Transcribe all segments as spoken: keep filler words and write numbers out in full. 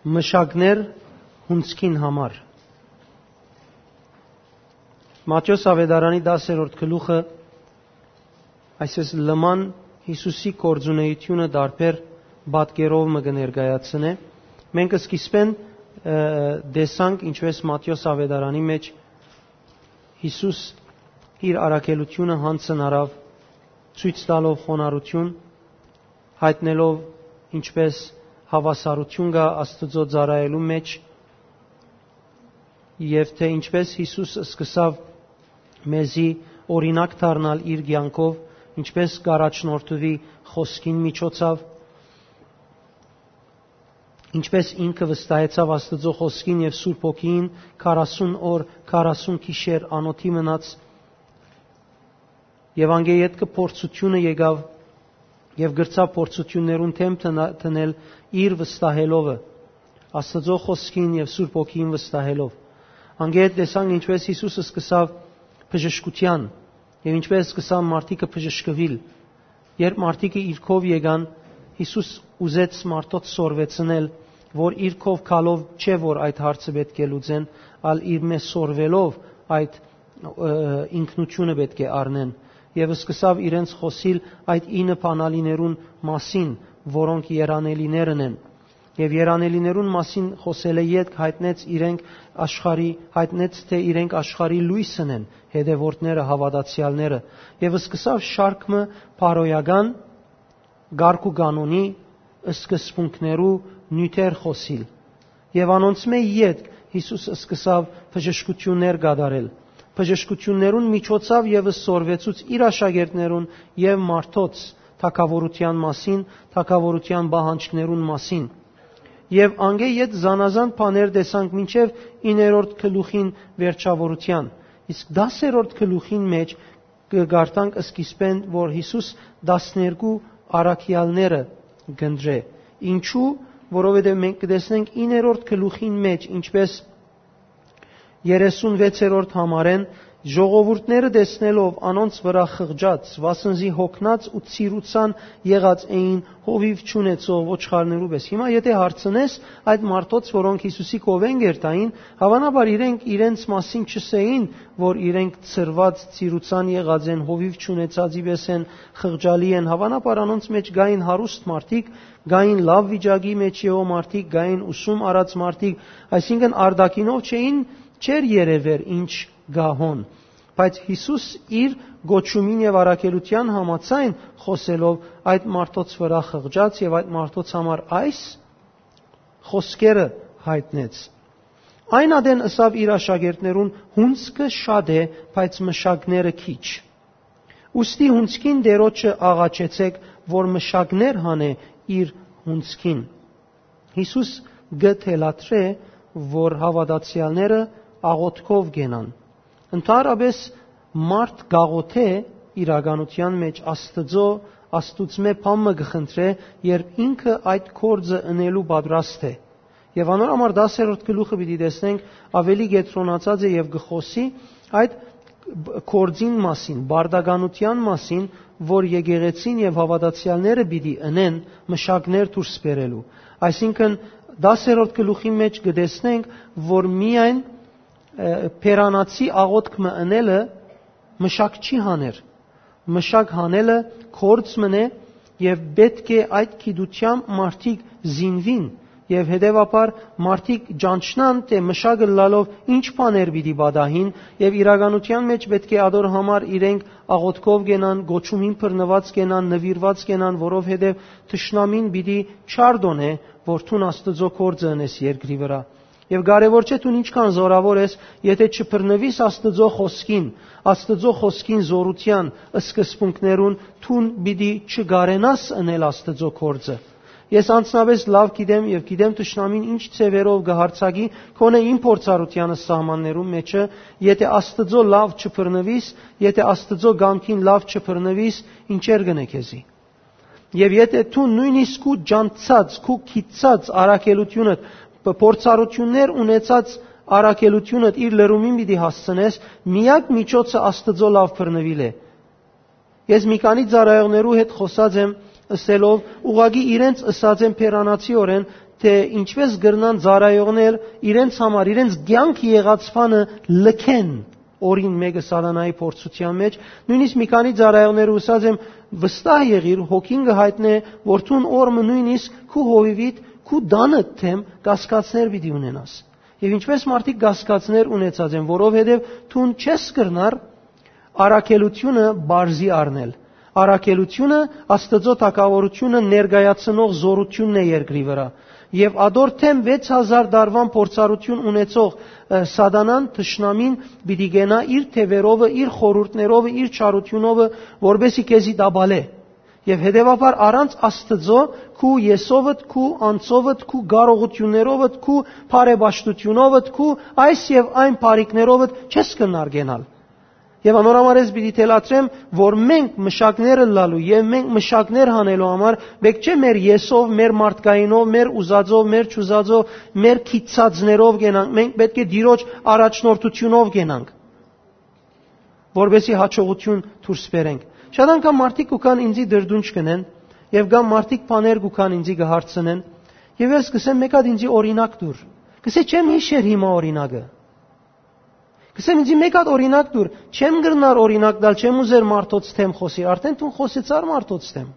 Մշակներ հունցքին համար։ Մատթէոս Աւետարանի տասերորդ գլուխը այսպես լման Յիսուսի գործունեությունը տարբեր պատկերով մը կը ներկայացնէ։ Մենք սկիզբեն, ը, տեսանք, ինչպես Մատթէոս Աւետարանի մեջ Յիսուս իր առաքելությունը յանձն առաւ, ցոյց տալով խոնարհութիւն, յայտնելով ինչպես հաւասարութիւն կայ Աստուծոյ ծառայելու մէջ, եւ թէ ինչպես Յիսուս սկսաւ մեզի օրինակ դառնալ իր կեանքով, ինչպես կ'առաջնորդուի խօսքին միջոցաւ, ինչպես ինքը վստահեցաւ Աստուծոյ խօսքին եւ Սուրբ Հոգիին քառասուն օր, քառասուն գիշեր անօթի մնաց, եւ անկէ ետքը փորձութիւնը եկաւ, եւ կրցաւ փորձութիւններուն դէմ տնա-, դնել իր վստահելովը, Աստուծոյ խօսքին եւ Սուրբ Հոգիին վստահելով։ Անկէ հետ տեսանք, ինչպես Յիսուս սկսաւ բժշկութեան, եւ ինչպես սկսան մարդիկը բժշկուիլ։ Երբ մարդիկը իր քով եկան, Յիսուս ուզեց մարդոց սորվեցնել, որ իր քով գալով չէ, որ այդ հարցը պէտք է լուծեն, ալ իրմէ սորվելով այդ, ը, ինքնութիւնը պէտք է առնեն։ Եւ սկսաւ իրենց խօսիլ այդ ինը բանալիներուն մասին, որոնք երանելիներն են։ Եւ երանելիներուն մասին խօսելէ ետք յայտնեց իրենք աշխարհի, յայտնեց, թէ իրենք աշխարհի լոյսն են, հետեւորդները, հաւատացեալները, եւ սկսաւ շարք մը բարոյական կարգ ու կանոնի սկզբունքներու նիւթեր խօսիլ։ Եւ անոնցմէ ետք Յիսուս սկսաւ բժշկութիւններ կատարել։ Բժշկութիւններուն միջոցաւ եւս սորվեցուց իր աշակերտներուն եւ մարդոց թագաւորութեան մասին, թագաւորութեան պահանջներուն մասին։ Եւ անկէ յետ զանազան բաներ տեսանք մինչեւ իններորդ գլուխին վերջաւորութեան։ Իսկ տասերորդ գլուխին մէջ կը կարդանք սկիզբէն, որ Յիսուս տասներկու առաքեալները կ'ընտրէ։ Ինչու՞, որովհետեւ մենք կը տեսնենք իններորդ գլուխին մէջ, ինչպես երեսուն վեցերորդ համարէն, ժողովուրդները տեսնելով անոնց վրայ խղճած, վասն զի յոգնած ու ծիրուցան եղած էին, հովիւ չունեցող ոչխարներու պէս։ Հիմա եթէ հարցնես, այդ մարդոց, որոնք Յիսուսի կովէն կ'երթային, հաւանաբար իրենք իրենց մասին չըսէին, որ իրենք ծրված, ծիրուցան եղած են, հովիւ չունեցածի պէս են, խղճալի են։ Հաւանաբար անոնց մէջ կային հարուստ մարդիկ, կային լաւ վիճակի մէջ եղող մարդիկ, կային ուսում առած մարդիկ, այսինքն՝ արտաքինով չէին, չէր երեւեր ինչ կայ հոն։ Բայց Յիսուս իր կոչումին եւ առաքելութեան համաձայն խօսելով, այդ մարդոց վրայ խղճաց եւ այդ մարդոց համար այս խօսքերը յայտնեց. «Այն ատեն ըսաւ իր աշակերտներուն. "Հունձքը շատ է, բայց մշակները քիչ"։ Ուստի հունձքին տիրոջը աղաչեցէք, որ մշակներ հանէ իր հունձքին"։ Յիսուս կը թելադրէ, որ հաւատացեալները աղօթքով կենան։ Ընդհանրապէս մարդ կաղօթե իրականութեան մէջ Աստուծոյ, Աստուծմէ բան մը կը խնդրէ, երբ ինքը այդ գործը ընելու պատրաստ է։ Եւ անոր համար տասերորդ գլուխը պիտի տեսնենք, աւելի կեդրոնացած է եւ կը խօսի այդ բ-, գործին մասին, պարտականութեան մասին, որ եկեղեցին եւ հաւատացեալները պիտի ընեն մշակներ դուրս բերելու։ Այսինքն՝ տասերորդ գլուխի մէջ կը տեսնենք, որ միայն, ը, բերանացի աղօթք մը ընելը մշակ չի հաներ։ Մշակ հանելը գործ մըն է, եւ պէտք է այդ գիտութեամբ մարդիկ զինուին, եւ հետեւաբար մարդիկ ճանչնան, թէ մշակ ըլլալով ինչ բաներ պիտի պատահին, եւ իրականութեան մէջ պէտք է ադոր համար իրենք աղօթքով կենան, կոչումին բռնուած կենան, նուիրուած կենան, որովհետեւ թշնամին պիտի չարտոնէ, որ դուն Աստուծոյ գործը ընես երկրի վրայ։ Եւ կարեւոր չէ դուն ինչքան զօրաւոր ես, եթէ չբռնուիս Աստուծոյ խօսքին, Աստուծոյ խօսքին զօրութեան սկզբունքներուն, դուն պիտի չկարենաս ընել Աստուծոյ գործը։ Ես անձնապէս լաւ գիտեմ եւ գիտեմ թշնամին ինչ ձեւերով կը յարձակի, գոնե իմ փորձառութեանս սահմաններուն մէջը, եթէ Աստուծոյ լաւ չբռնուիս, եթէ Աստուծոյ կամքին լաւ չբռնուիս, ինչեր կ'ընէ քեզի։ Եւ եթէ դու նոյնիսկ քու ճանչցած, քու գիտցած առաքելութիւնդ, փ-, փորձառութիւններ ունեցած առաքելութիւնդ իր լրումին պիտի հասցնես, միակ միջոցը Աստուծոյ լաւ բռնուիլ է։ Ես մի քանի ծառայողներու հետ խօսած եմ, ըսելով, ուղղակի իրենց ըսած եմ բերանացիօրէն, թէ ինչպէս կրնան ծառայողներ իրենց համար, իրենց կեանքը եղած բանը լքեն օրին մէկը սատանայի փորձութեան մէջ, նոյնիսկ մի քանի ծառայողներ ուսած եմ, վստահ եղիր, հոգին կը յայտնէ, որ դուն օր մը նոյնիսկ քու հովիվիդ, քու տանդ թեմ կասկածներ պիտի ունենաս։ Եւ ինչպէս մարդիկ կասկածներ ունեցած են, որովհետեւ դուն չես կրնար առաքելությունը բարձի առնել։ Առաքելությունը Աստուծոյ թագաւորությունը ներկայացնող զօրութիւնն է երկրի վրայ։ Եւ ատոր թեմ վեց հազար տարուան փորձառութիւն ունեցող, ը, սատանան, թշնամին պիտի գնայ իր թեւերովը, իր խորհուրդներովը, իր չարութիւնովը, որպեսզի քեզի տապալէ։ Եւ հետեւաբար առանց Աստուծոյ քու եսովդ, քու անձովդ, քու կարողութիւններովդ, քու բարեպաշտութիւնովդ, քու այս եւ այն բարիքներովդ չես կրնար գնալ։ Եւ անոր համար ես պիտի թելադրեմ, որ մենք մշակներ ըլլալու եւ մենք մշակներ հանելու համար պէտք չէ մեր եսով, մեր մարդկայինով, մեր ուզածով, մեր չուզածով, մեր քիծածներով գնանք, մենք պէտք է Տիրոջ առաջնորդութիւնով գնանք, որպեսզի հաջողութիւն դուրս բերենք։ Շատ անգամ մարդիկ կու գան ինձի դրդունջ կ'ընեն եւ կամ մարդիկ բաներ կու գան ինձի կը հարցնեն եւ ես կ'ըսեմ, «Մէկ հատ ինձի օրինակ տուր»։ Կ'ըսէ, «Չեմ յիշեր հիմա օրինակը»։ Կ'ըսեմ, «Ինձի մէկ հատ օրինակ տուր»։ Չեմ կրնար օրինակ տալ, չեմ ուզեր մարդոց թեմ խօսի, արդեն դուն խօսեցար մարդոց թեմ։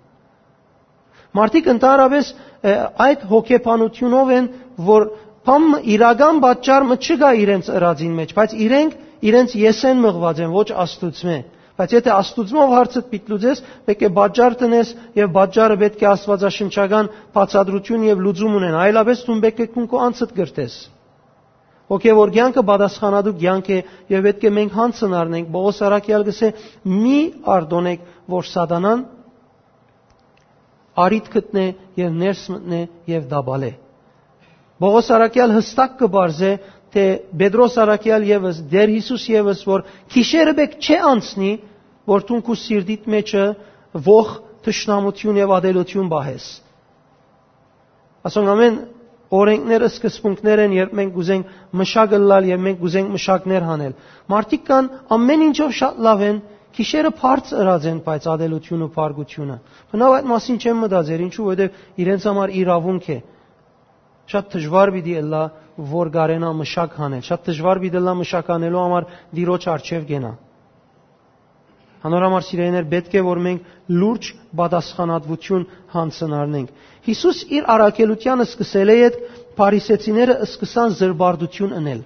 Մարդիկ ընդհանրապես, ը, այդ հոգեբանութիւնով են, որ բան մը, իրական պատճառ մը չկայ իրենց ըրածին մէջ, բայց իրենք իրենց եսեն մղուած են, ոչ Աստուծմէ։ Բայց եթէ Աստուծմով հարցդ պիտի լուծես, պէտք է պատճառ տնես եւ պատճառը պէտք է աստուածաշնչական բացատրութիւն եւ լուծում ունենայ, այլապես դուն պէտք է քուն քո անձդ կրթես։ Հոգեւոր կեանքը պատասխանատու կեանք է եւ պէտք է մենք յանցն առնենք։ Պողոս առաքեալ կ'ըսէ, «Մի արտօնեք, որ սատանան առիթ գտնէ եւ ներս մտնէ եւ տապալէ»։ Պողոս առաքեալ յստակ կը պարզէ, թէ Պետրոս առաքեալ եւս, Տէր Յիսուս եւս, որ գիշերը պէտք չէ անցնի, որ դուն քու սիրտիդ մէջը ոխ, թշնամութիւն եւ ատելութիւն պահես։ Ասոնք ամէն օրենքներ, սկզբունքներ են, երբ մենք կ'ուզենք մշակ ըլլալ եւ մենք կ'ուզենք մշակներ հանել։ Մարդիկ կան, ամէն ինչով շատ լաւ են, գիշերը բարձ ըրած են, բայց ատելութիւնը, փառքութիւնը։ Բնաւ այդ մասին չեմ մտածեր, ինչու, որովհետեւ իրենց համար իրաւունք է։ Շատ դժուար պիտի ըլլայ, որ կարենայ մշակ հանել։ Շատ դժուար պիտի ըլլայ մշակ հանելու համար Տիրոջ առջեւ կենայ։ Անոր համար, սիրելիներ, պէտք է որ մենք լուրջ պատասխանատվութիւն յանցն առնենք։ Յիսուս իր առաքելութեան սկսելէ յետ փարիսեցիները սկսան զրպարտութիւն ընել։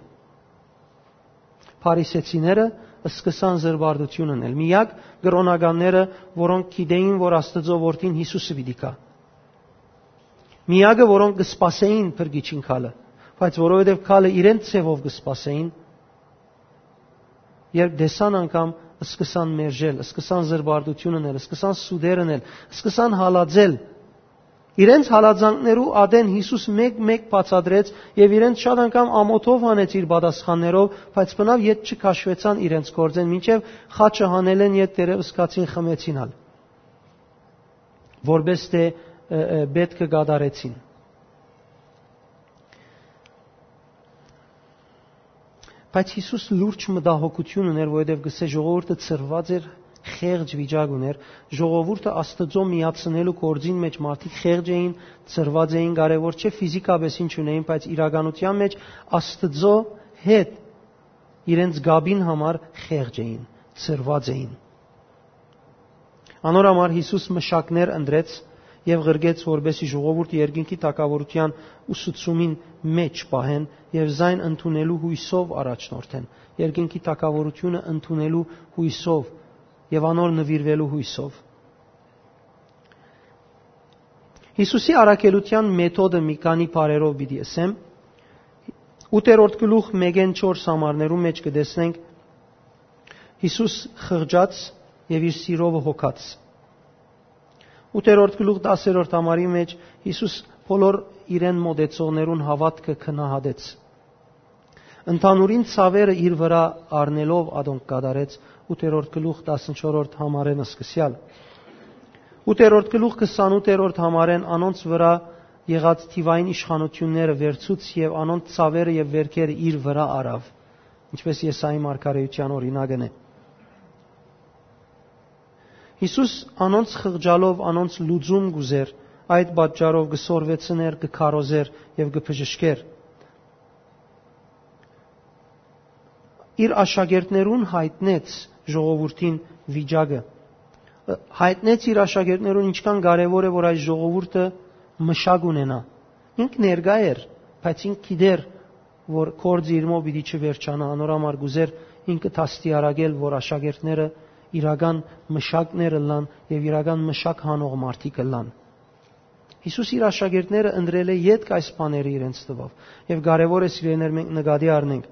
Փարիսեցիները սկսան զրպարտութիւն ընել։ Միակ կրօնականները, որոնք գիտեին, որ Աստուծոյ որդին Յիսուսը պիտի գայ։ Միակը, որոնք կը սպասէին փրկիչին գալը, բայց որովհետեւ գալը իրենց ձեւով կը սպասէին, երբ տեսան անգամ, սկսան մերժել, սկսան զրպարտութիւն ընել, սկսան սուտեր ընել, սկսան հալածել։ Իրենց հալածանքներու ատեն Յիսուս մէկ-մէկ բացատրեց եւ իրենց շատ անգամ ամօթով հանեց իր պատասխաններով, բայց բնաւ յետ չքաշուեցան իրենց գործէն, մինչեւ խաչը հանելէն յետ դեռեւս կացին խմեցին ալ, որպէս թէ, ը, ը, պէտքը կատարեցին։ Բայց Յիսուս լուրջ մտահոգութիւն ուներ, որովհետեւ կ'ըսէ, ժողովուրդը ցրուած էր, խեղճ վիճակ ուներ, ժողովուրդը Աստուծոյ միացնելու գործին մէջ մարդիկ խեղճ էին, ցրուած էին, կարեւոր չէ ֆիզիկապես ինչ ունեին, բայց իրականութեան մէջ Աստուծոյ հետ իրենց կապին համար խեղճ էին, ցրուած էին։ Անոր համար Յիսուս մշակներ ընտրեց եւ ղրկեց, որպեսզի ժողովուրդը երկնքի թագաւորութեան ուսուցումին մէջ պահեն եւ զայն ընդունելու յոյսով առաջնորդեն, երկնքի թագաւորութիւնը ընդունելու յոյսով եւ անոր նուիրուելու յոյսով։ Յիսուսի առաքելութեան մեթոդը մի քանի բառերով պիտի ըսեմ։ Ութերորդ գլուխ մէկէն չորս համարներու մէջ կը տեսնենք Յիսուս խղճաց եւ իր սիրովը հոգաց։ Ութերորդ գլուխ տասերորդ համարի մէջ Յիսուս բոլոր իրեն մոտեցողներուն հաւատքը գնահատեց։ Ընդհանուրին ցաւերը իր վրայ առնելով ատոնք կատարեց, ութերորդ գլուխ տասնչորսերորդ համարէն սկսեալ։ Ութերորդ գլուխ քսանութերորդ համարէն անոնց վրայ եղած թիվային իշխանութիւնները վերցուց եւ անոնց ցաւերը եւ վերքերը իր վրայ առաւ, ինչպէս Եսայի մարգարէութեան օրինակն է։ Յիսուս անոնց խղճալով անոնց լուծում կ'ուզէր, Այդ պատճառով կը սորվեցնէր, կը քարոզէր եւ կը բժշկէր։ Իր աշակերտներուն յայտնեց ժողովուրդին վիճակը։ Ը, յայտնեց իր աշակերտներուն ինչքան կարեւոր է, որ այս ժողովուրդը մշակ ունենայ։ Ինք ներկայ էր, բայց ինք գիտեր, որ գործը իրմով պիտի չվերջանայ, անոր համար կ'ուզէր ինքը դաստիարակել, որ աշակերտները իրական մշակներ ըլլան եւ իրական մշակ հանող մարդիկ ըլլան։ Յիսուս իր աշակերտները ընտրելէ ետք այս բաները իրենց տուաւ, եւ կարեւոր է, սիրելիներ, մենք նկատի առնենք,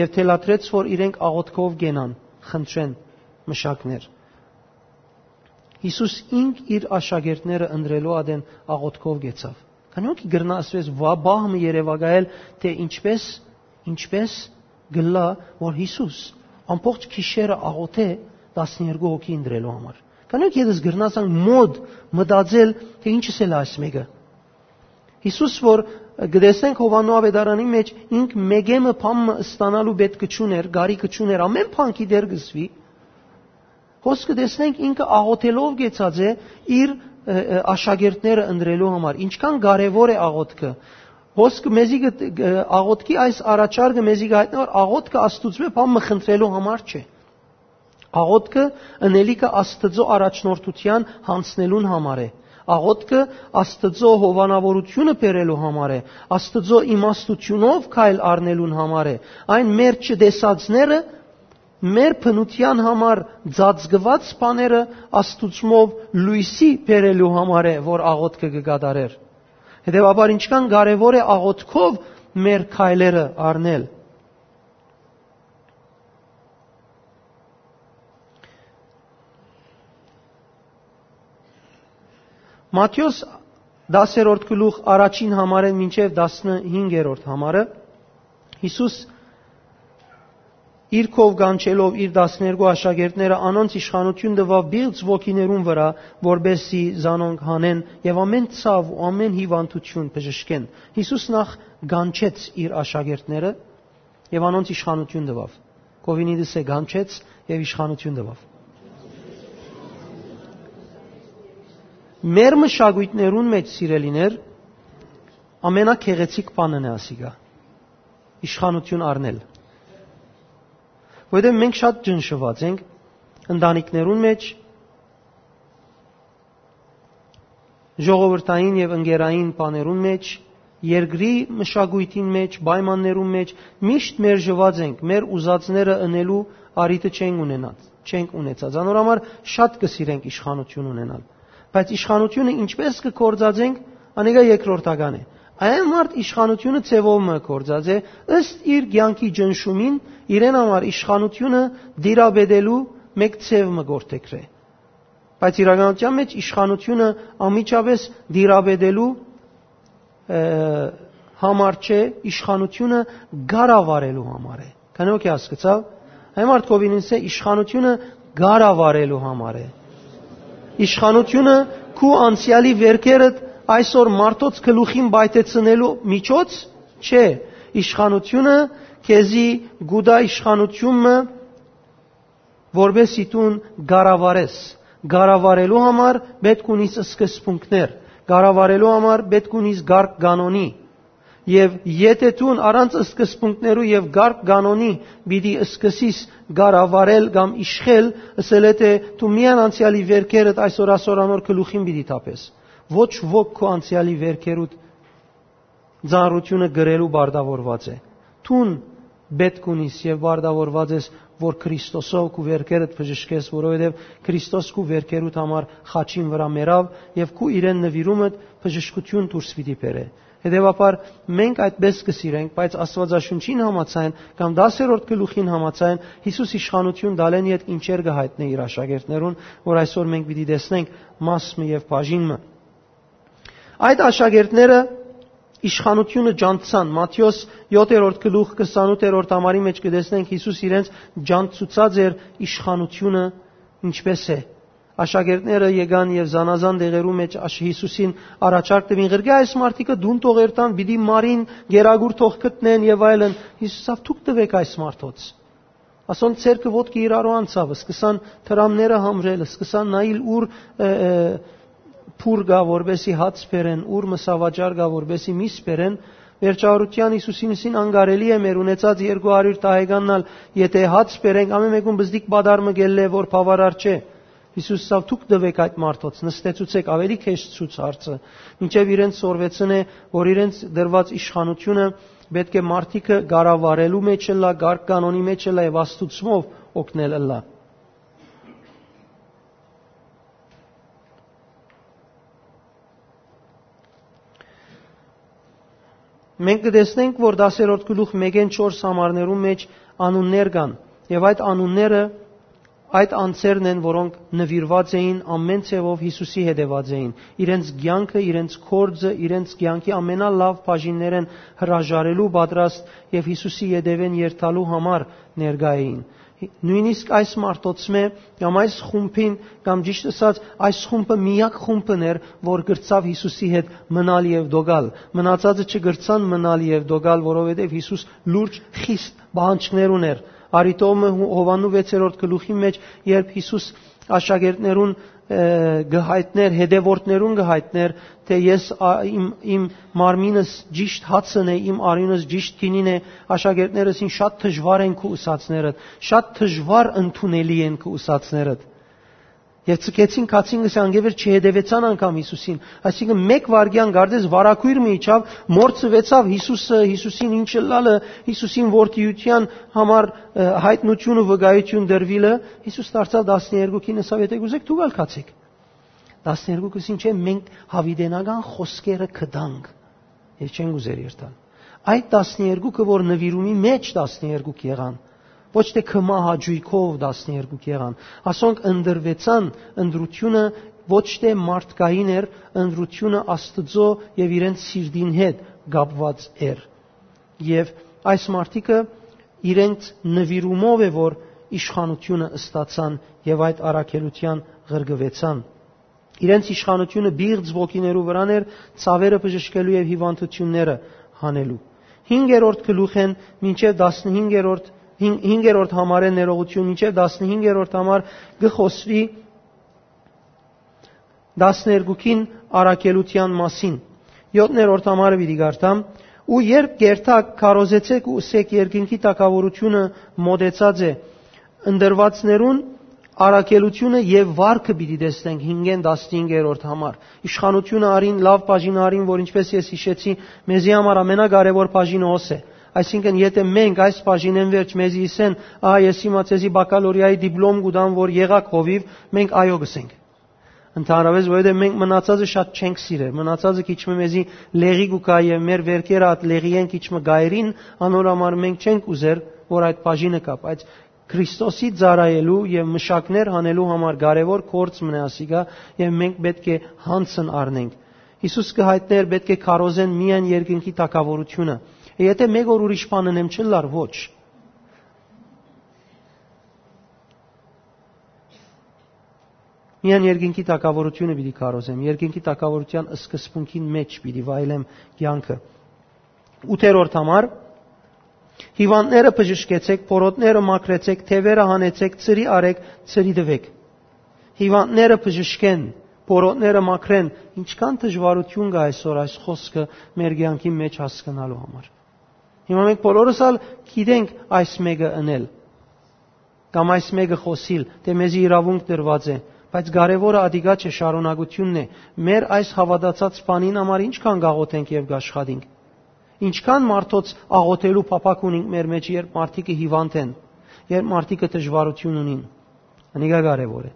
եւ թելադրեց, որ իրենք աղօթքով կենան, խնդրեն մշակներ։ Յիսուս ինք իր աշակերտները ընտրելու ատեն աղօթքով կեցաւ։ Քանի՞ որ կրնայ ասուես, վա-, պահ մը երեւակայել, թէ ինչպես, ինչպես կ'ըլլայ, որ Յիսուս ամբողջ գիշերը աղօթէ տասներկու հոգի ընտրելու համար։ Քանի՞ որ ետս կրնայ ասենք մոտ մտածել, թէ ինչս էլ այս մեկը։ Յիսուս, որ կը տեսնենք Յովհաննու աւետարանին մէջ, ինք մեկէ մը բան մը ստանալու պէտք չունէր, կարիք չունէր, ամէն բան գիտեր կ'ըսուի, հոս կը տեսնենք ինքը աղօթելով կեցած է իր, ը, ը, աշակերտները ընտրելու համար։ Ինչքան կարեւոր է աղօթքը։ Հոս կը մեզի կը, կը, աղօթքի այս առաջարկը մեզի կը հայտնի, որ աղօթքը Աստուծմէ բան մը խնդրելու համար չէ։ Աղօթքը ընելիքը Աստծո առաջնորդութեան յանձնելուն համար է։ Աղօթքը Աստծո հովանաւորութիւնը բերելու համար է, Աստծո իմաստութիւնով քայլ առնելուն համար է։ Այն մեր չտեսածները, մեր բնութեան համար ծածկուած բաները Աստուծմով լոյսի բերելու համար է, որ աղօթքը կը կատարեր։ Հետեւաբար, ինչքան կարեւոր է աղօթքով մեր քայլերը առնել։ Մատթէոս դասերորդ գլուխ առաջին համարէն մինչեւ տասնհինգերորդ համարը, Յիսուս իր քով կանչելով իր տասներկու աշակերտները, անոնց իշխանութիւն տուաւ պիղծ ոգիներուն վրայ, որպէս զի զանոնք հանեն եւ ամէն ցաւ ու ամէն հիւանդութիւն բժշկեն։ Յիսուս նախ կանչեց իր աշակերտները եւ անոնց իշխանութիւն տուաւ։ Կովինիտս է կանչեց եւ իշխանութիւն տուաւ։ Մեր մշակոյթներուն մէջ, սիրելիներ, ամենագեղեցիկ բանն է ասիկա, իշխանութիւն առնել։ Որովհետեւ մենք շատ ճնշուած ենք ընտանիքներուն մէջ, ժողովրդային եւ ընկերային բաներուն մէջ, երկրի մշակոյթին մէջ, պայմաններուն մէջ, միշտ մերժուած ենք, մեր ուզածները ընելու առիթը չենք ունենած, չենք ունեցած։ Անոր համար շատ կը սիրենք իշխանութիւն ունենալ։ Բայց իշխանութիւնը ինչպես կը գործածենք, անիկա երկրորդական է։ Այն մարդ իշխանութիւնը ձեւով մը կը գործածէ, ըստ իր կեանքի ճնշումին, իրեն համար իշխանութիւնը տիրապետելու մէկ ձեւ մը կ'որդեգրէ։ Բայց իրականութեան մէջ իշխանութիւնը անմիջապէս տիրապետելու, ը, համար չէ, իշխանութիւնը կառավարելու համար է։ Քանի՞ որ հասկացաւ, այն մարդ կովինինս է, իշխանութիւնը կառավարելու համար է։ Իշխանութիւնը քու անցեալի վերքերդ այսօր մարդոց գլուխին պայթեցնելու միջոց չէ։ Իշխանութիւնը քեզի գուտա իշխանութիւն մը, որպէս զի դուն կառավարես։ Կառավարելու համար պէտք ունիս սկզբունքներ, կառավարելու համար պէտք ունիս կարգ կանոնի։ Եւ եթէ դուն առանց սկզբունքներու եւ կարգ կանոնի պիտի սկսես կառավարել կամ իշխել, ըսել է թէ դու միայն անցեալի վերքերդ այսօր, այսօր անոր գլուխին պիտի թափես։ Ոչ ոք քու անցեալի վերքերուդ ծանրութիւնը կրելու պարտաւորուած է։ Դուն պէտք ունիս եւ պարտաւորուած ես, որ Քրիստոսով քու վերքերդ բժշկես, որովհետեւ Քրիստոս քու վերքերուդ համար խաչին վրայ մեռաւ եւ քու իրեն նուիրումդ բժշկութիւն դուրս պիտի բերէ։ Հետեւաբար մենք այդպես կը սիրենք, բայց Աստուածաշունչին համաձայն կամ տասերորդ գլուխին համաձայն Յիսուս իշխանութիւն տալէն ետք ինչեր կը հայտնէ իր աշակերտներուն, որ այսօր մենք պիտի տեսնենք մաս մը եւ բաժին մը։ Այդ աշակերտները իշխանութիւնը ջանցցան։ Մատթէոս յոթերորդ գլուխ քսանութերորդ համարի մէջ կը տեսնենք Յիսուս իրենց ջանցուցած էր իշխանութիւնը ինչպես է։ Աշակերտները եկան եւ զանազան տեղերու մէջ աշ-, Յիսուսին առաջարկ տուին. «Ղրկէ այս մարդիկը, դուն թող երթան, պիտի մարին, գերագուր թող գտնեն եւ այլն»։ Յիսուս ասաւ. «Դուք տուէք այս մարդոց»։ Ասոնց ձեռքը ոտքը իրարու անցաւ, սկսան դրամները համրել, սկսան նայիլ ուր, ը, ը, փուռ կայ, որպէսի հաց բերեն, ուռ մսավաճառ կայ, որպէսի միս բերեն, վերջավորութեան Յիսուսին ըսին անկարելի է մեր ունեցած երկու հարիւր տահեկանն ալ, եթէ հաց բերենք, ամէն մէկուն բզդիկ պատառ մը կ'ելլէ, որ բաւարար չէ։ Յիսուս ըսաւ. «Դուք տուէք այդ մարդոց, նստեցուցէք», աւելի քեշցուց հարցը, մինչեւ իրենց սորվեցնէ, որ իրենց դրուած իշխանութիւնը պէտք է մարդիկը կառավարելու մէջ ըլլայ, կարգ կանոնի մէջ ըլլայ եւ Աստուծմով օգնել ըլլայ։ Մենք կը տեսնենք, որ տասերորդ գլուխ մէկէն չորս համարներուն մէջ անուններ կան, եւ այդ անունները այդ անձերն են, որոնք նուիրուած էին, ամէն ձեւով Յիսուսի հետեւած էին, իրենց կեանքը, իրենց գործը, իրենց կեանքի ամենալաւ բաժիններէն հրաժարելու պատրաստ եւ Յիսուսի ետեւէն երթալու համար ներկայ էին։ Նոյնիսկ այս մարդոցմէ կամ այս խումբին, կամ ճիշդ ըսած, այս խումբը միակ խումբն էր, որ կրցաւ Յիսուսի հետ մնալ եւ դոգալ։ Մնացածը չկրցան մնալ եւ դոգալ, որովհետեւ Յիսուս լուրջ, խիստ պահանջներ ունէր։ Արիտովը Հովաննու վեցերորդ գլուխի մէջ, երբ Յիսուս աշակերտներուն, ը, կը յայտնէր, հետեւորդներուն կը յայտնէր, թէ ես, ա, իմ, իմ մարմինս ճիշտ հացն է, իմ արիւնս ճիշտ գինին է, աշակերտներս ինձ շատ դժուար են քու ուսածներդ, շատ դժուար ընդունելի են քու ուսածներդ։ Եւ ցկեցին, քացին, գսե, անկեւեր չհետեւեցան անգամ Յիսուսին։ Այսինքն, մէկ վայրկեան կարծես վարագոյր մը իջաւ, մորցուեցաւ Յիսուսը, Յիսուսին ինչ ըլլալը, Յիսուսին որդիության համար, ը, յայտնութիւն ու վկայութիւն տրուիլը, Յիսուս դարձաւ տասներկուքին, ըսաւ. «Եթէ կուզէք, դուք ալ գացէք»։ Տասներկուքը ըսին. «Չէ, մենք յաւիտենական խօսքերը կտանք»։ Եւ չեն ուզեր երթալ։ Այդ տասներկուքը, որ նուիրումի մէջ տասներկուք եղան, ոչ թէ քմահաճոյքով տասներկուք եղան, ասոնք ընտրուեցան, ընտրութիւնը ոչ թէ մարդկային էր, ընտրութիւնը Աստուծոյ եւ իրենց սիրտին հետ կապուած էր։ Եւ այս մարդիկը իրենց նուիրումով է, որ իշխանութիւնը ստացան եւ այդ առաքելութեան ղրկուեցան։ Իրենց իշխանութիւնը պիղծ ոգիներու վրան էր, ցաւերը բժշկելու եւ հիւանդութիւնները հանելու։ Հինգերորդ գլուխէն մինչեւ տասնհինգերորդ, հին-, հինգերորդ համարէն ներողություն, մինչեւ տասնհինգերորդ համար կը խօսուի տասներկուքին առաքելութեան մասին։ Յոթներորդ համարը պիտի կարդամ. «Ու երբ կ'երթաք, քարոզեցէք ու ըսէք. երկնքի թագաւորութիւնը մօտեցած է։ Ընտրուածներուն առաքելութիւնը եւ վարկը պիտի տեսնենք»։ Հինգէն տասնհինգերորդ համար. «Իշխանութիւնը առին, լաւ բաժինը առին, որ, ինչպէս ես յիշեցի, մեզի համար ամենակարեւոր բաժինը հոս է»։ Այսինքն, եթէ մենք այս բաժինէն վերջ մեզի ըսեն. «Ա, ես հիմա ձեզի բակալորիայի դիպլոմ կու տամ, որ եղաք հովիւ», մենք «այո» կ'ըսենք։ Ընդհանրապես, որովհետեւ մենք մնացածը շատ չենք սիրեր, մնացածը քիչ մը մեզի լեղի կու գայ եւ մեր վերքերը այդ լեղիէն քիչ մը կայրին, անոր համար մենք չենք ուզեր, որ այդ բաժինը կայ, բայց Քրիստոսի ծառայելու եւ մշակներ հանելու համար կարեւոր գործ մնայ ասիկա, եւ մենք պէտք է յանցն առնենք։ Յիսուս կը յայտնէր, պէտք է քարոզեն միայն երկնքի թագաւորութիւնը։ Եթէ մէկ օր ուրիշ բան ընեմ, չըլլար, ոչ։ Միայն երկնքի թագաւորութիւնը պիտի քարոզեմ, երկնքի թագաւորութեան սկզբունքին մէջ պիտի վայելեմ կեանքը։ Ութերորդ համար. «Հիվանդները բժշկեցեք, փորոտները մաքրեցեք, թեւերը հանեցեք, ծրի արեք, ծրի տուէք»։ Հիվանդները բժշկեն, փորոտները մաքրեն, ինչքան դժուարութիւն կայ այսօր այս խօսքը մեր կեանքի մէջ հասկնալու համար։ Հիմա մենք բոլորս ալ գիտենք այս մէկը ընել, կամ այս մէկը խօսիլ, թէ մեզի իրաւունք տրուած է, բայց կարեւորը ատիկա չէ, շարունակութիւնն է։ Մեր այս հաւատացած բանին համար ինչքան կաղոթենք եւ կաշխատենք։ Ինչքան մարդոց աղոթելու փափաք ունենք մեր մեջ, երբ մարդիկը հիվանդ են, երբ մարդիկը դժուարութիւն ունին։ Անիկա կարեւոր է։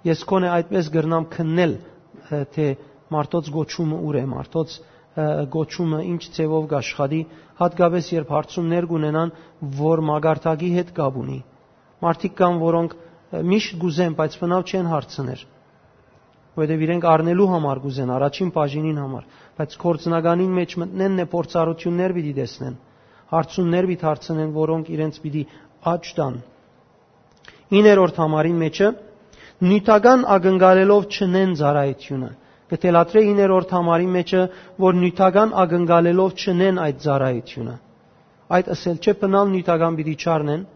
Ես քոնէ այդպես կրնամ քննել, ը, թէ մարդոց գոչումը ուր է, մարդոց, ը, գոչումը ինչ ձևով կաշխատի, հատկապես երբ հարցումներ կունենան, որ մակարդակի հետ կապ ունի։ Մարդիկ կան, որոնք, ը, միշտ կուզեն, բայց բնավ չեն հարցներ, որովհետեւ իրենք առնելու համար կուզեն, առաջին բաժինին համար, բայց գործնականին մէջ մտնեն, նե փորձառութիւններ պիտի տեսնեն, հարցումներ պիտի հարցնեն, որոնք իրենց պիտի աճ տան։ Իններորդ համարին մէջը, նիւթական ակնկալելով չնեն ծառայութիւնը։ Կը թելադրէ իններորդ համարին մէջը, որ նիւթական ակնկալելով չնեն այդ ծառայութիւնը։ Այդ ըսել չէ, բնալ նիւթական պիտի չառնեն,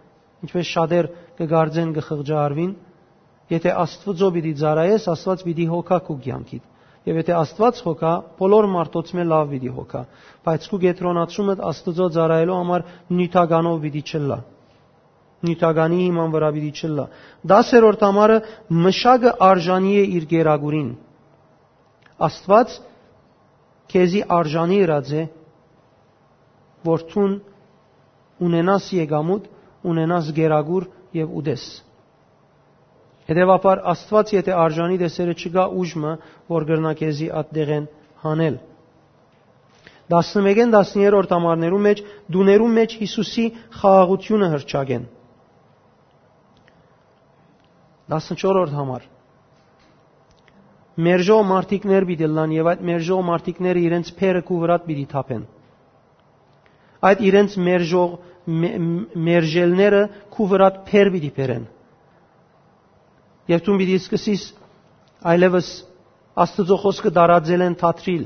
ինչպես շատեր կը կարծեն, կը խղճահարուին։ Եթէ Աստուծոյ պիտի ծառայես, Աստուած պիտի հոգայ քու կեանքիդ։ Եթէ Աստուած հոգայ, բոլոր մարդոց մէ լաւ պիտի հոգայ, բայց քու կեդրոնացումդ Աստուծոյ ծառայելու համար նիւթականով պիտի չըլլայ։ Նիւթականի հիման վրա պիտի չըլլայ։ Տասերորդ համարը, մշակը արժանի է իր գերագուրին։ Աստուած քեզի արժանի ըրած է, որ դուն ունենաս եկամուտ, ունենաս գերագուր եւ ուտես։ Հետեւաբար, Աստուած եթէ արժանի տեսերը, չկայ ուժ մը, որ կրնայ քեզի ատտեղէն հանել։ Տասնմէկէն տասներորդ համարներու մէջ, տուներու մէջ Յիսուսի խաղաղութիւնը հռչակեն։ Տասնչորրորդ համար։ Մերժող մարդիկներ պիտի ըլլան եւ այդ մերժող մարդիկները իրենց փերը քու վրադ պիտի թափեն։ Այդ իրենց մերժող, մե-, մերժելները քու վրադ փեր պիտի բերեն։ Եւ դուն պիտի սկսես այլեւս Աստուծոյ խօսքը տարածելէն դադրիլ,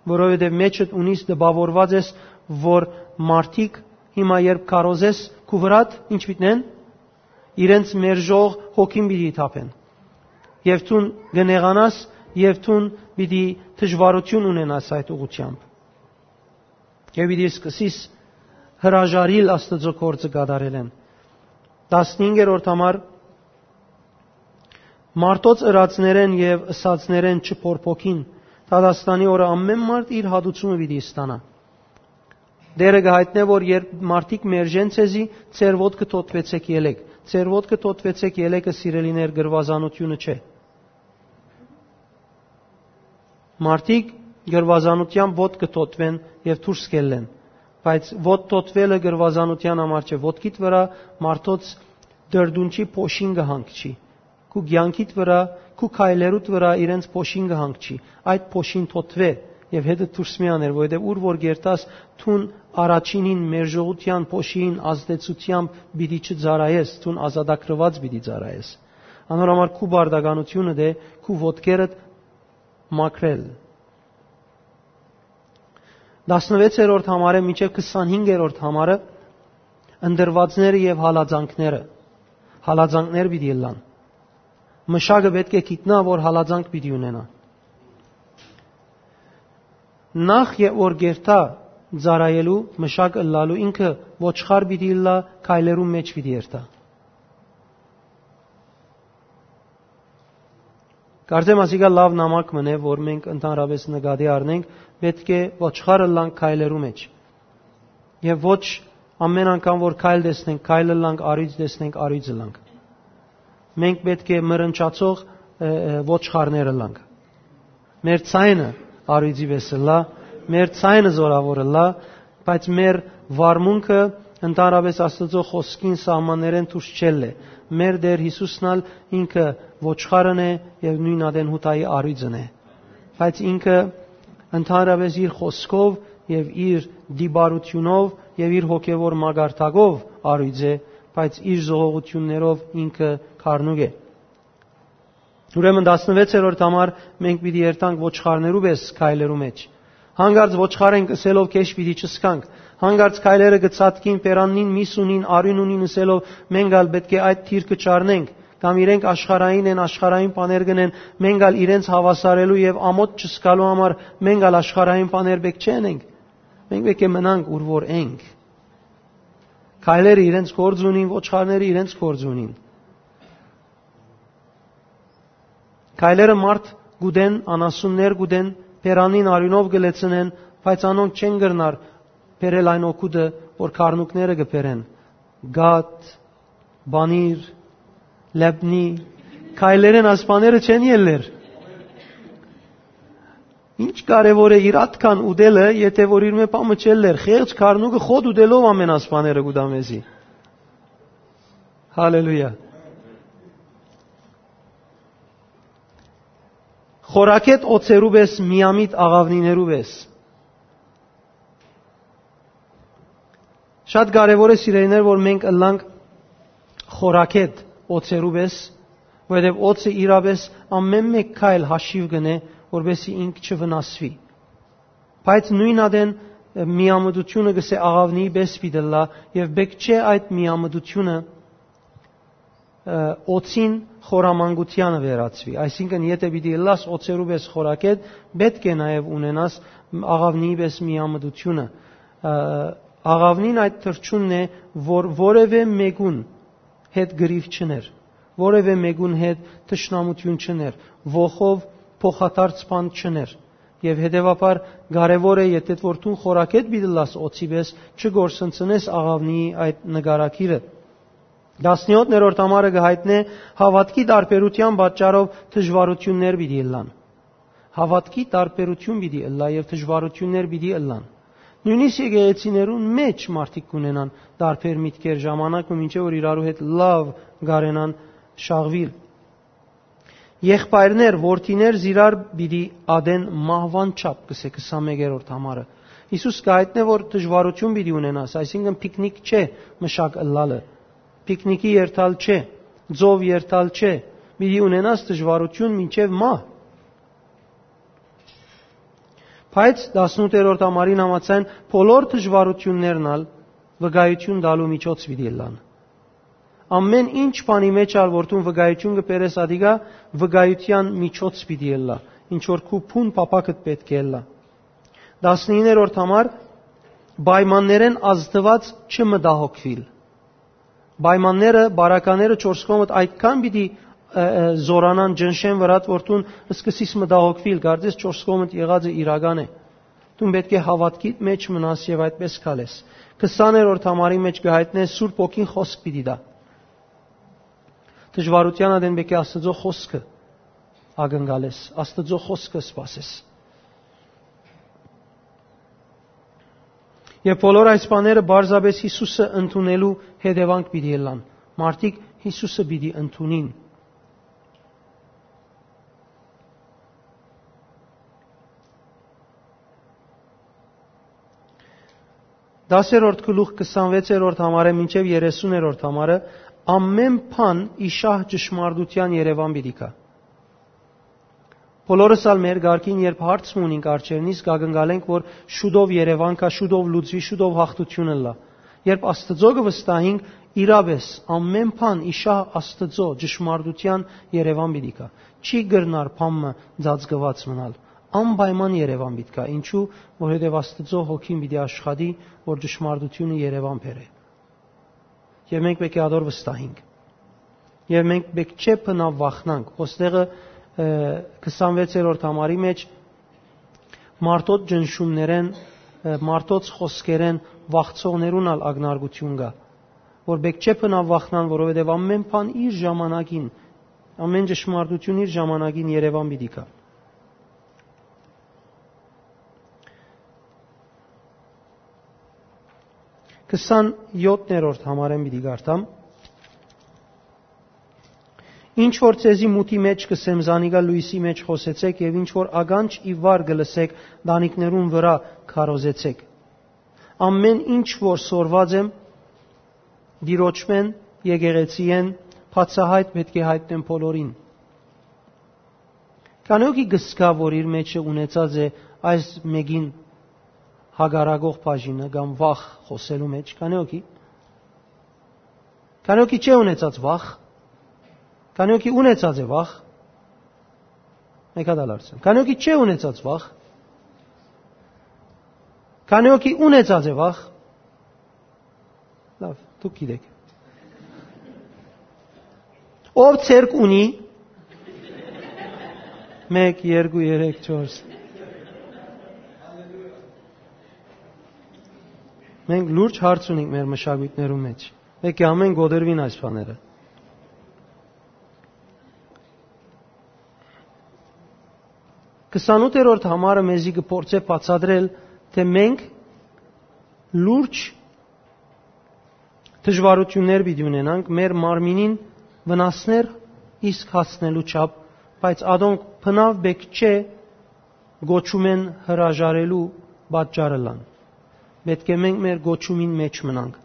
որովհետեւ մեջդ ունիս տպաւորուած ես, որ մարդիկ հիմա, երբ քարոզես քու վրադ, ինչ պիտի ընեն, իրենց մերժող հոգին պիտի թափեն։ Եւ դուն կը նեղանաս, եւ դուն պիտի դժուարութիւն ունենաս այդ ուղղութեամբ։ Եւ պիտի սկսես հրաժարիլ Աստուծոյ գործը կատարելէն։ Տասնհինգերորդ համար, մարդոց ըրածներէն եւ ըսածներէն չփորփոքին, դատաստանի օրը ամէն մարդ իր հատուցումը պիտի ստանայ։ Տէրը կը յայտնէ, որ երբ մարդիկ մերժեն ձեզի, ձեր ոտքը թօթուեցէք ելեք։ Ձեր ոտքը թօթուեցէք ելեկը, սիրելիներ, կրուազանութիւնը չէ։ Մարդիկ կրուազանութեան ոտքը թօթուեն եւ դուրս կ'ելլեն, բայց ոտք թօթուելը կրուազանութեան համար չէ։ Ոտքիդ վրայ մարդոց դրդունչի փոշին կը հանգչի։ Քու կեանքիդ վրայ, քու քայլերուդ վրայ իրենց փոշին կը հանգչի։ Այդ փոշին թօթուէ եւ հետը դուրս մի աներ, որովհետեւ ուր որ կ'երթաս, դուն առաջինին մերժողութեան փոշին ազդեցութեամբ պիտի չծառայես, դուն ազատագրուած պիտի ծառայես։ Անոր համար քու պարտականութիւնդ է քու ոտքերդ մաքրել։ Տասնվեցերորդ համարէն մինչեւ քսանհինգերորդ համարը, ընտրուածները եւ հալածանքները։ Հալածանքներ պիտի ըլլան։ Մշակը պէտք է գիտնայ, որ հալածանք պիտի ունենայ։ Նախ եւ որ կ'երթայ ծառայելու, մշակ ըլլալու, ինքը ոչխար պիտի ըլլայ, քայլերու մէջ պիտի երթայ։ Կարծեմ ասիկա լաւ նամակ մըն է, որ մենք ընդհանրապէս նկատի առնենք, պէտք է ոչխար ըլլանք քայլերու մէջ։ Եւ ոչ ամէն անգամ որ քայլ տեսնենք, քայլ ըլլանք, առիթ տեսնենք, առիթ ըլլանք։ Մենք պէտք է մռնչացող, ը, ը, ոչխարներ ըլլանք։ Մեր ձայնը առիթի պէս ըլլայ, մեր ձայնը զորաւոր ըլլայ, բայց մեր վարմունքը ընդհանրապէս Աստուծոյ խօսքին սահմաններէն դուրս չելլէ։ Մեր Տէր Յիսուսն ալ ինքը ոչխարն է եւ նոյն ատեն Յուդայի առիթն է։ Բայց ինքը ընդհանրապէս իր խօսքով եւ իր դիպարութիւնով եւ իր հոգեւոր մակարդակով առիթ է, բայց իր զողողութիւններով ինքը քարնուկ է։ Ուրեմն տասնվեցերորդ համար մենք պիտի երթանք ոչխարներու պէս քայլերու մէջ։ Հանկարծ ոչխար ենք ըսելով քեշ պիտի չսկանք։ Հանկարծ քայլերը կը ցատկին, պերաննին, միս ունին, արիւն ունին ըսելով մենք ալ պէտք է այդ դիրքը չառնենք, կամ իրենք աշխարհային են, աշխարհային բաներ կ'ընեն, մենք ալ իրենց հաւասարելու եւ ամոթ չսկալու համար մենք ալ աշխարհային բաներ պէտք չ'ընենք։ Մենք պէտք է մնանք ուր որ ենք։ Քայլերը իրենց գործ ունին, ոչխարները իրենց գործ ունին։ Քայլերը մարդ կ'ուտեն, անասուններ կ'ուտեն, բերանին արիւնով կը լեցնեն, բայց անոնք չեն կրնար բերել այն օգուտը, որ քարնուկները կը բերեն։ Գաթ, պանիր, լեբնի, քայլերէն այս բաները չեն ելլեր։ Ինչ կարեւոր է իր ատքան ուտելը, եթէ որ իր մէ բան մը չ'ելլեր, խեղճ քարնուկը խոտ ուտելով ամէն այս բաները կ'ուտայ մեզի։ Հալելույա։ Խորագետ օծերու պէս, միամիտ աղաւնիներու պէս։ Շատ կարեւոր է, սիրելիներ, որ մենք ըլլանք խորագետ օծերու պէս, որովհետեւ օծը իրապէս ամէն մէկ քայլ հաշիւ կ'ընէ, որպեսզի ինք չվնասուի։ Բայց նոյն ատեն, ը, միամտութիւնը, կ'ըսէ, աղաւնիի պէս պիտի ըլլայ, եւ պէտք չէ այդ միամտութիւնը ը, օծին խորամանկությանը վերածուի։ Այսինքն, եթէ պիտի ըլլաս օծերու պէս խորակետ, պէտք է նաեւ ունենաս աղաւնիի պէս միամտությունը, ը, աղաւնին այդ թռչունն է, որ որեւէ մեկուն հետ գրիվ չներ, որեւէ մեկուն հետ թշնամութիւն չներ, ոխով փոխադարձ բան չներ։ Եւ հետեւաբար կարեւոր է, եթէ որ դուն խորակետ պիտի ըլլաս օծի պէս, չկորսնցնես աղաւնիի այդ նկարագիրը։ Տասներորդ ամառը կը յայտնէ, հաւատքի տարբերութեան պատճառով դժուարութիւններ պիտի ըլլան։ Հաւատքի տարբերութիւն պիտի ըլլայ եւ դժուարութիւններ պիտի ըլլան։ Նոյնիսկ եկեղեցիներուն մէջ մարդիկ կունենան տարբեր միտքեր, ժամանակ մը մինչեւ որ իրարու հետ լաւ կարենան շաղուիլ։ Եղբայրներ, որդիներ զիրար պիտի ատեն մահուան չափ, կսէ քսանմեկերորդ համարը։ Յիսուս կը յայտնէ, որ դժուարութիւն պիտի ունենաս, այսինքն՝ փիկնիկ չէ մշակ ըլլալը, փիկնիկի երթալ չէ, ծով երթալ չէ, պիտի ունենաս դժուարութիւն մինչեւ մահ։ Բայց տասնութերորդ համարին համաձայն՝ բոլոր դժուարութիւններն ալ վկայութիւն տալու միջոց պիտի ըլլան։ Ամէն ինչ բանի մէջ ալ որ դուն վկայութիւն կը բերես, ատիկա վկայութեան միջոց պիտի ըլլայ, ինչ որ քու բուն փափաքդ պէտք է ըլլայ։ Տասնիններորդ համար՝ պայմաններէն ազդուած չմտահոգուիլ։ Պայմանները, բարակաները չորս կողմդ այդքան պիտի, ը, ը, զորանան, ճնշեն վրադ, որ դուն սկսես մտահոգուիլ, կարծես չորս կողմդ եղածը իրական է։ Դուն պէտք է հաւատքիդ մէջ մնաս եւ այդպես քալես։ Քսաներորդ համարի մէջ կը յայտնէ, Սուրբ Հոգին խօսք պիտի տայ։ Դժուարութեան ատեն պէտք է Աստուծոյ խօսքը ակնկալես, Աստուծոյ խօսքը սպասես։ Եւ բոլոր այս բաները պարզապէս Յիսուսը ընդունելու հետեւանք պիտի ըլլան։ Մարդիկ Յիսուսը պիտի ընդունին։ Տասերորդ գլուխ քսանվեցերորդ համարը մինչեւ երեսուներորդ համարը, ամէն բան ի շահ ճշմարտութեան երեւան պիտի գայ։ Բոլորս ալ մեր կարգին, երբ հարց մը ունինք առջեւնից, կակնկալենք, որ շուտով երեւան գայ, շուտով լուծուի, շուտով յաղթութիւն ըլլայ։ Երբ Աստուծոյ կը վստահինք, իրապէս, ամէն բան ի շահ Աստուծոյ ճշմարտութեան երեւան պիտի գայ։ Չի կրնար բան մը ծածկուած մնալ։ Անպայման երեւան պիտի գայ։ Ինչու՞, որովհետեւ Աստուծոյ Հոգին պիտի աշխատի, որ ճշմարտութիւնը երեւան բերէ։ Եւ մենք պէտք է ատոր վստահինք։ Եւ մենք պէտք չէ բնաւ վախնանք։ Ոստեղը, ը, քսանվեցերորդ համարի մէջ մարդոց ճնշումներէն, ը, մարդոց խօսքերէն վախցողներուն ալ ակնարկութիւն կայ, որ պէտք չէ բնաւ վախնան, որովհետեւ ամէն բան իր ժամանակին, ամէն ճշմարտութիւն իր ժամանակին երեւան պիտի գայ։ Քսանյոթերորդ համարէն պիտի կարդամ։ Ինչ որ ձեզի մութի մէջ կ'ըսեմ, զանիկա լոյսի մէջ խօսեցէք, եւ ինչ որ ականջ ի վար կը լսէք, տանիքներուն վրայ քարոզեցէք։ Ամէն ինչ որ սորված եմ Տիրոջմէն, եկեղեցիէն, բացահայտ պէտք է յայտնեմ բոլորին։ Քանի՞ հոգի կ'ըսկայ, որ իր մէջը ունեցած է այս մէկին հակառակող բաժինը կամ վախ խօսելու մէջ։ Քանի՞ հոգի։ Քանի՞ հոգի չէ ունեցած վախ։ Քանի՞ հոգի ունեցած է վախ։ Մեկ հատ ալ հարցնեմ։ Քանի՞ հոգի չէ ունեցած վախ։ Քանի՞ հոգի ունեցած է վախ։ Լավ, դուք գիտեք։ Ով ցերկ ունի, մեկ, երկու, երեք, չորս։ Մենք լուրջ հարց ունենք մեր մշակույթներու մեջ։ Պէտք է ամեն կոտրվին այս բաները։ Քսանութերորդ համարը մեզի կը փորձէ բացատրել, թէ մենք լուրջ դժուարութիւններ պիտի ունենանք մեր մարմինին վնասներ իսկ հասնելու չափ, բայց ադոնք բնաւ պէտք չէ կոչումէն հրաժարելու պատճառ ըլլան։ Պէտք է մենք մեր կոչումին մէջ մնանք։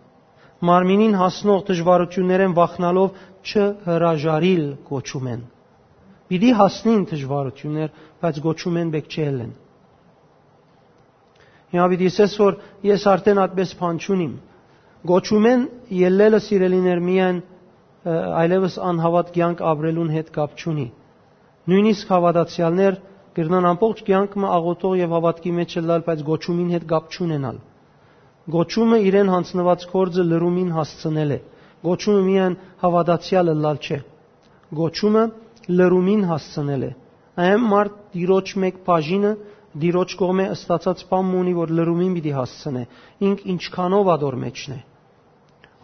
Մարմինին հասնող դժուարութիւններէն վախնալով չհրաժարիլ կոչումէն։ Պիտի հասնին դժուարութիւններ, բայց կոչումէն պէտք չէ ելլեն։ Հիմա պիտի ասես, որ ես արդեն այդպես բան չունիմ։ Կոչումէն ելլելը, սիրելիներ, միայն այլեւս անհաւատ կեանք ապրելուն հետ կապ չունի։ Նոյնիսկ հաւատացեալներ կրնան ամբողջ կեանք մը աղօթող եւ հաւատքի մէջ ըլլալ, բայց կոչումին հետ կապ չունենալ։ Կոչումը իրեն յանձնուած գործը լրումին հասցնել է։ Կոչումը միայն հաւատացեալ ըլլալ չէ։ Կոչումը լրումին հասցնել է։ Այն մարդ Տիրոջ մէկ բաժինը Տիրոջ կողմէ ստացած բան մը ունի, որ լրումին պիտի հասցնէ, ինք ինչքանով ատոր մէջն է։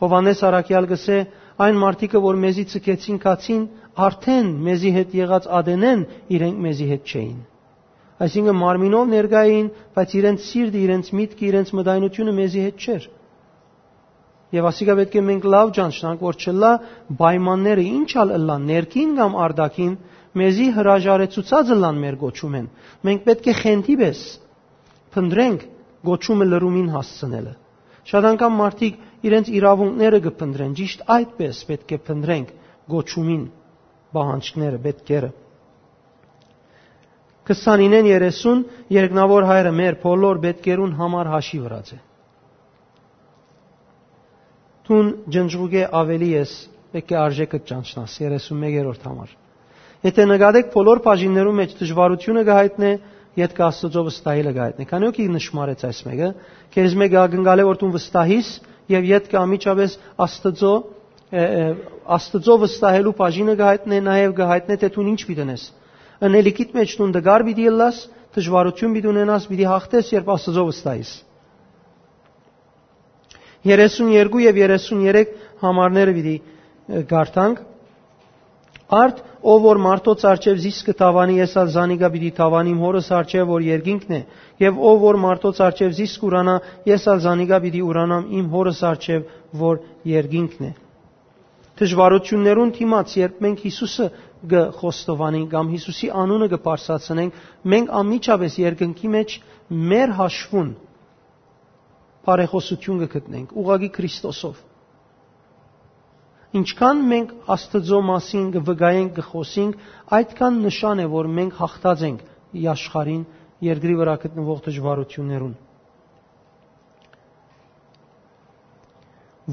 Յովհաննէս Առաքեալ կ'ըսէ. «Այն մարդիկը, որ մեզի ցկեցին գացին, արդէն մեզի հետ եղած ատենէն իրենք մեզի հետ չէին»։ Այսինքն՝ մարմինով ներկայ էին, բայց իրենց սիրտը, իրենց միտքը, իրենց մտայնությունը մեզի հետ չէր։ Եւ ասիկա պէտք է մենք լաւ ճանչնանք, որ չըլլայ պայմանները ինչ ալ ըլլան, ներքին կամ արտաքին, մեզի հրաժարեցուցած ըլլան մեր կոչումէն։ Մենք պէտք է խենթի պէս փնտռենք կոչումը լրումին հասցնելը։ Շատ անգամ մարդիկ իրենց իրաւունքները կը փնտռեն, ճիշդ այդպէս պէտք է փնտռենք կոչումին պահանջները, պէտքերը։ Քսանինէն երեսուն երկնաւոր Հայրը մեր բոլոր պէտքերուն համար հաշի վրած է։ Դուն ջնջուկէ աւելի ես, պէտք է արժէքը ճանչնաս, երեսուն մեկերորդ համար։ Եթէ նկատեք, բոլոր բաժիններու մէջ դժուարութիւնը կը յայտնէ, ետքը Աստուծոյ վստահելը կը յայտնէ։ Քանի՞ օքի նշմարեց այս մեկը, քեզմէ կը ակնկալէ, որ դուն վստահիս եւ ետքը անմիջապէս Աստուծոյ, ը, ը, Աստուծոյ վստահելու բաժինը կը յայտնէ, նաեւ կը յայտնէ, թէ դուն ինչ պիտի ընես։ Ընելիքիդ մէջ դուն տկար պիտի ըլլաս, դժուարութիւն պիտի ունենաս, պիտի յաղթես, երբ Աստուծոյ վստահիս։ Երեսուն երկու եւ երեսուն երեք համարները պիտի, ը, կարդանք։ Արդ, ով որ մարդոց առջեւ զիս կը դաւանի, ես ալ զանիկա պիտի դաւանիմ Հօրս առջեւ, որ երկինքն է, եւ ով որ մարդոց առջեւ զիս կ'ուրանայ, ես ալ զանիկա պիտի ուրանամ իմ Հօրս առջեւ, որ երկինքն է։ Դժուարութիւններուն դիմաց, երբ մենք Յիսուսը կը խոստովանենք կամ Յիսուսի անունը կը բարձրացնենք, մենք անմիջապէս երկնքի մէջ մեր հաշվուն բարեխօսութիւն կը գտնենք, ուղղակի Քրիստոսով։ Ինչքան մենք Աստուծոյ մասին կը վկայենք, կը խօսենք, այդքան նշան է, որ մենք յաղթած ենք ի աշխարհին, երկրի վրայ գտնուող դժուարութիւններուն։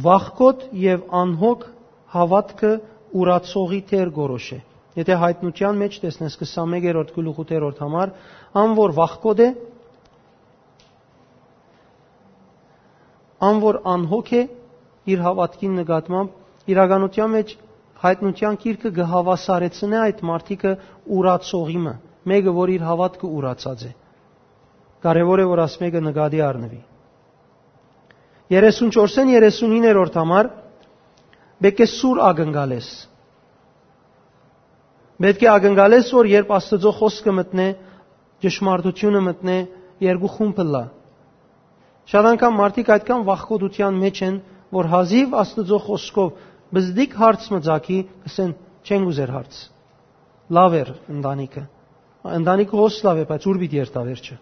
Վախկոտ եւ անհոգ հաւատքը ուրացողի դեր կորոշ է։ Եթէ Յայտնութեան մէջ տեսնես, քսանմեկերորդ գլուխ ութերորդ համար, ան որ վախկոտ է, ան որ անհոգ է իր հաւատքին նկատմամբ, իրականութեան մէջ Յայտնութեան գիրքը կը հաւասարեցնէ այդ մարդիկը ուրացողի մը, մէկը, որ իր հաւատքը ուրացած է։ Կարեւոր է, որ աս մէկը նկատի առնուի։ Երեսուն չորսէն երեսունիններորդ համար պէտք է սուր ակնկալես։ Պէտք է ակնկալես, որ երբ Աստուծոյ խօսքը մտնէ, ճշմարտութիւնը մտնէ, երկու խումբ ըլլայ։ Շատ անգամ մարդիկ այդքան վախկոտութեան մէջ են, որ հազիւ Աստուծոյ խօսքով բզդիկ հարց մը ծագի, կ'ըսեն. «Չենք ուզեր հարց»։ Լաւ էր ընտանիքը։ Ընտանիքը հոս լաւ է, բայց ո՞ւր պիտի երթայ վերջը։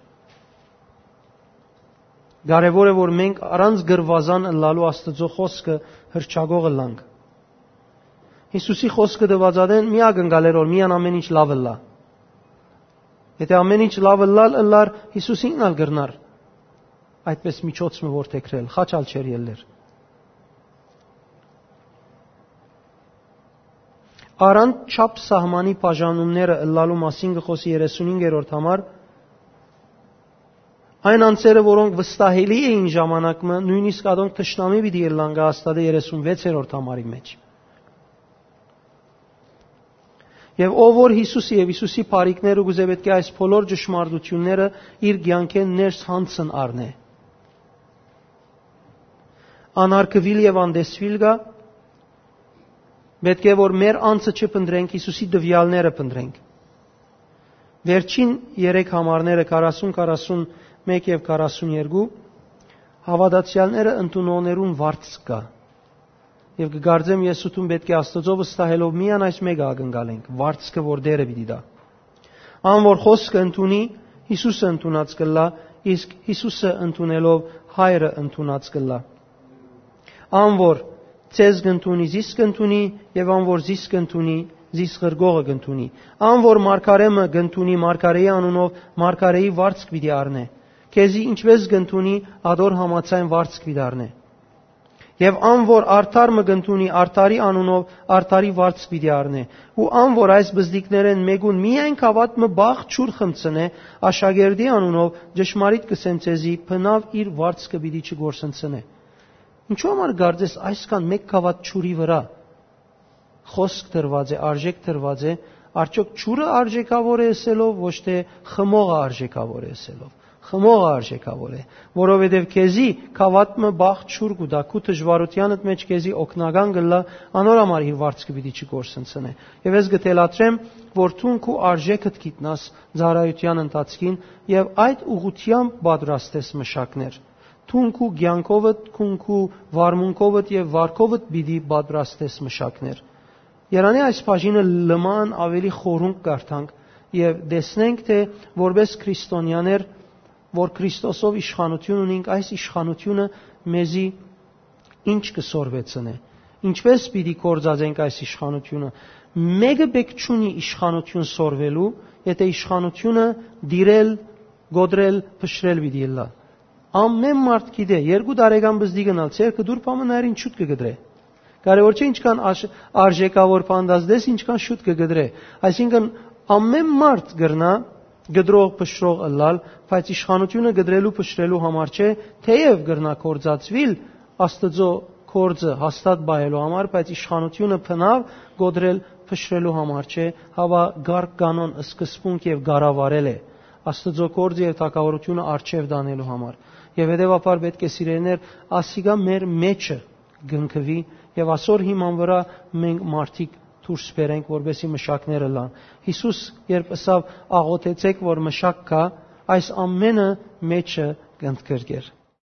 Կարեւոր է, որ մենք առանց գրուազան ըլլալու Աստուծոյ խօսքը հռչակող ըլլանք։ Յիսուսի խօսքը տուած ատեն մի ակնկալեր, որ միան ամէն ինչ լաւ ըլլայ։ Եթէ ամէն ինչ լաւ ըլլալ ըլլար, Յիսուս ինքն ալ կրնար այդպէս միջոց մը որդեգրել, խաչ ալ չէր ելլեր։ Առանց չափ սահմանի բաժանումները ըլլալու մասին կը խօսի երեսունհինգերորդ համար, այն անձերը, որոնք վստահելի էին ժամանակ մը, նոյնիսկ ատոնք թշնամի պիտի ըլլան, կը հաստատէ երեսունվեցերորդ համարի մէջ։ Եւ ով որ Յիսուսը եւ Յիսուսի բարիքները կ'ուզէ, պէտք է այս բոլոր ճշմարտութիւնները իր կեանքէն ներս յանցն առնէ։ Անարգուիլ եւ անտեսուիլ կայ, պէտք է որ մեր անձը չփնտռենք, Յիսուսի տուեալները փնտռենք։ Վերջին երեք համարները՝ քառասուն, քառասուն մէկ եւ քառասուն երկու, հաւատացեալները ընդունողներուն վարձ կայ։ Եւ կը կարծեմ, ես ու դուն պէտք է Աստուծոյ վստահելով միայն այս մէկը ակնկալենք, վարձքը որ Տէրը պիտի տայ։ Ան որ խօսքը ընդունի, Յիսուսը ընդունած կ'ըլլայ, իսկ Յիսուսը ընդունելով Հայրը ընդունած կ'ըլլայ։ Ան որ ձեզ կ'ընդունի, զիս կ'ընդունի, եւ ան որ զիս կ'ընդունի, զիս ղրկողը կ'ընդունի։ Ան որ մարգարէ մը կ'ընդունի մարգարէի անունով, մարգարէի վարձք պիտի առնէ։ Քեզի ինչպէս կ'ընդունի, ատոր համաձայն վարձք պիտի առնէ։ Եւ ան որ արդար մը կ'ընդունի, արդարի անունով արդարի վարձ պիտի առնէ։ Ու ան որ այս բզդիկներէն մէկուն միայն գաւաթ մը բաղ ջուր խմցնէ, աշակերտի անունով, ճշմարիտ կ'ըսեմ ձեզի, բնաւ իր վարձքը պիտի չգործնցնէ»։ Ինչո՞ւ համար կարծես այսքան մէկ գաւաթ ջուրի վրայ խօսք դրուած է, արժէք դրուած է, արդյոք ջուրը արժէքաւոր է ըսելով, ոչ թէ խմողը արժէքաւոր է ըսելով։ Խմողը արժէքաւոր է, որովհետեւ քեզի գաւաթ մը բաղ ջուր կու տայ, քու դժուարութեանդ մէջ քեզի օգնական կ'ըլլայ, անոր համար իր վարձքը պիտի չկորսնցնէ։ Եւ ես կը թելադրեմ, որ դուն քու արժէքդ գիտնաս ծառայութեան ընթացքին եւ այդ ուղղությամբ պատրաստես մշակներ։ Դուն քու կեանքովդ, քուն քու վարմունքովդ եւ վարքովդ պիտի պատրաստես մշակներ։ Երանի այս բաժինը լման ավելի խորունկ կարդանք եւ տեսնենք, թէ որպես քրիստոնյաներ, որ Քրիստոսով իշխանություն ունինք, այս իշխանությունը մեզի ինչ կը սորվեցնէ, ինչպես պիտի գործածենք այս իշխանությունը։ Մէկը պէք չունի իշխանություն սորվելու, եթէ իշխանությունը դիրել, գոդրել, փշրել պիտի ըլլայ։ Ամեն մարդ գիտէ, երկու տարեկան բզդի գնալ, ձեր կդուր պամը նայր ինչ շուտ կը գդրէ։ Կարևոր չէ ինչքան աշ-, արժեքավոր պանդազդես, ինչքան շուտ կը գդրէ։ Այսինքն, ամեն մարդ կրնայ գդրող, փշրող ըլլալ, բայց իշխանությունը գդրելու, փշրելու համար չէ, թեև կրնայ գործածուիլ Աստուծոյ գործը հաստատ պահելու համար, բայց իշխանությունը բնաւ գոդրել, փշրելու համար չէ, հապա կարգ կանոն, սկզբունք եւ կառավարել է։ Աստուծոյ գործը եւ թագաւորությունը առջեւ տանելու համար։ Եւ հետեւաբար պէտք է, սիրելիներ, ասիկա մեր մեջը կնքուի եւ ասոր հիման վրայ մենք մարդիկ դուրս բերենք, որպեսզի մշակներ ըլլան։ Յիսուս երբ ըսաւ, «Աղօթեցէք, որ մշակ գայ», այս ամենը մեջը կընդգրկէր։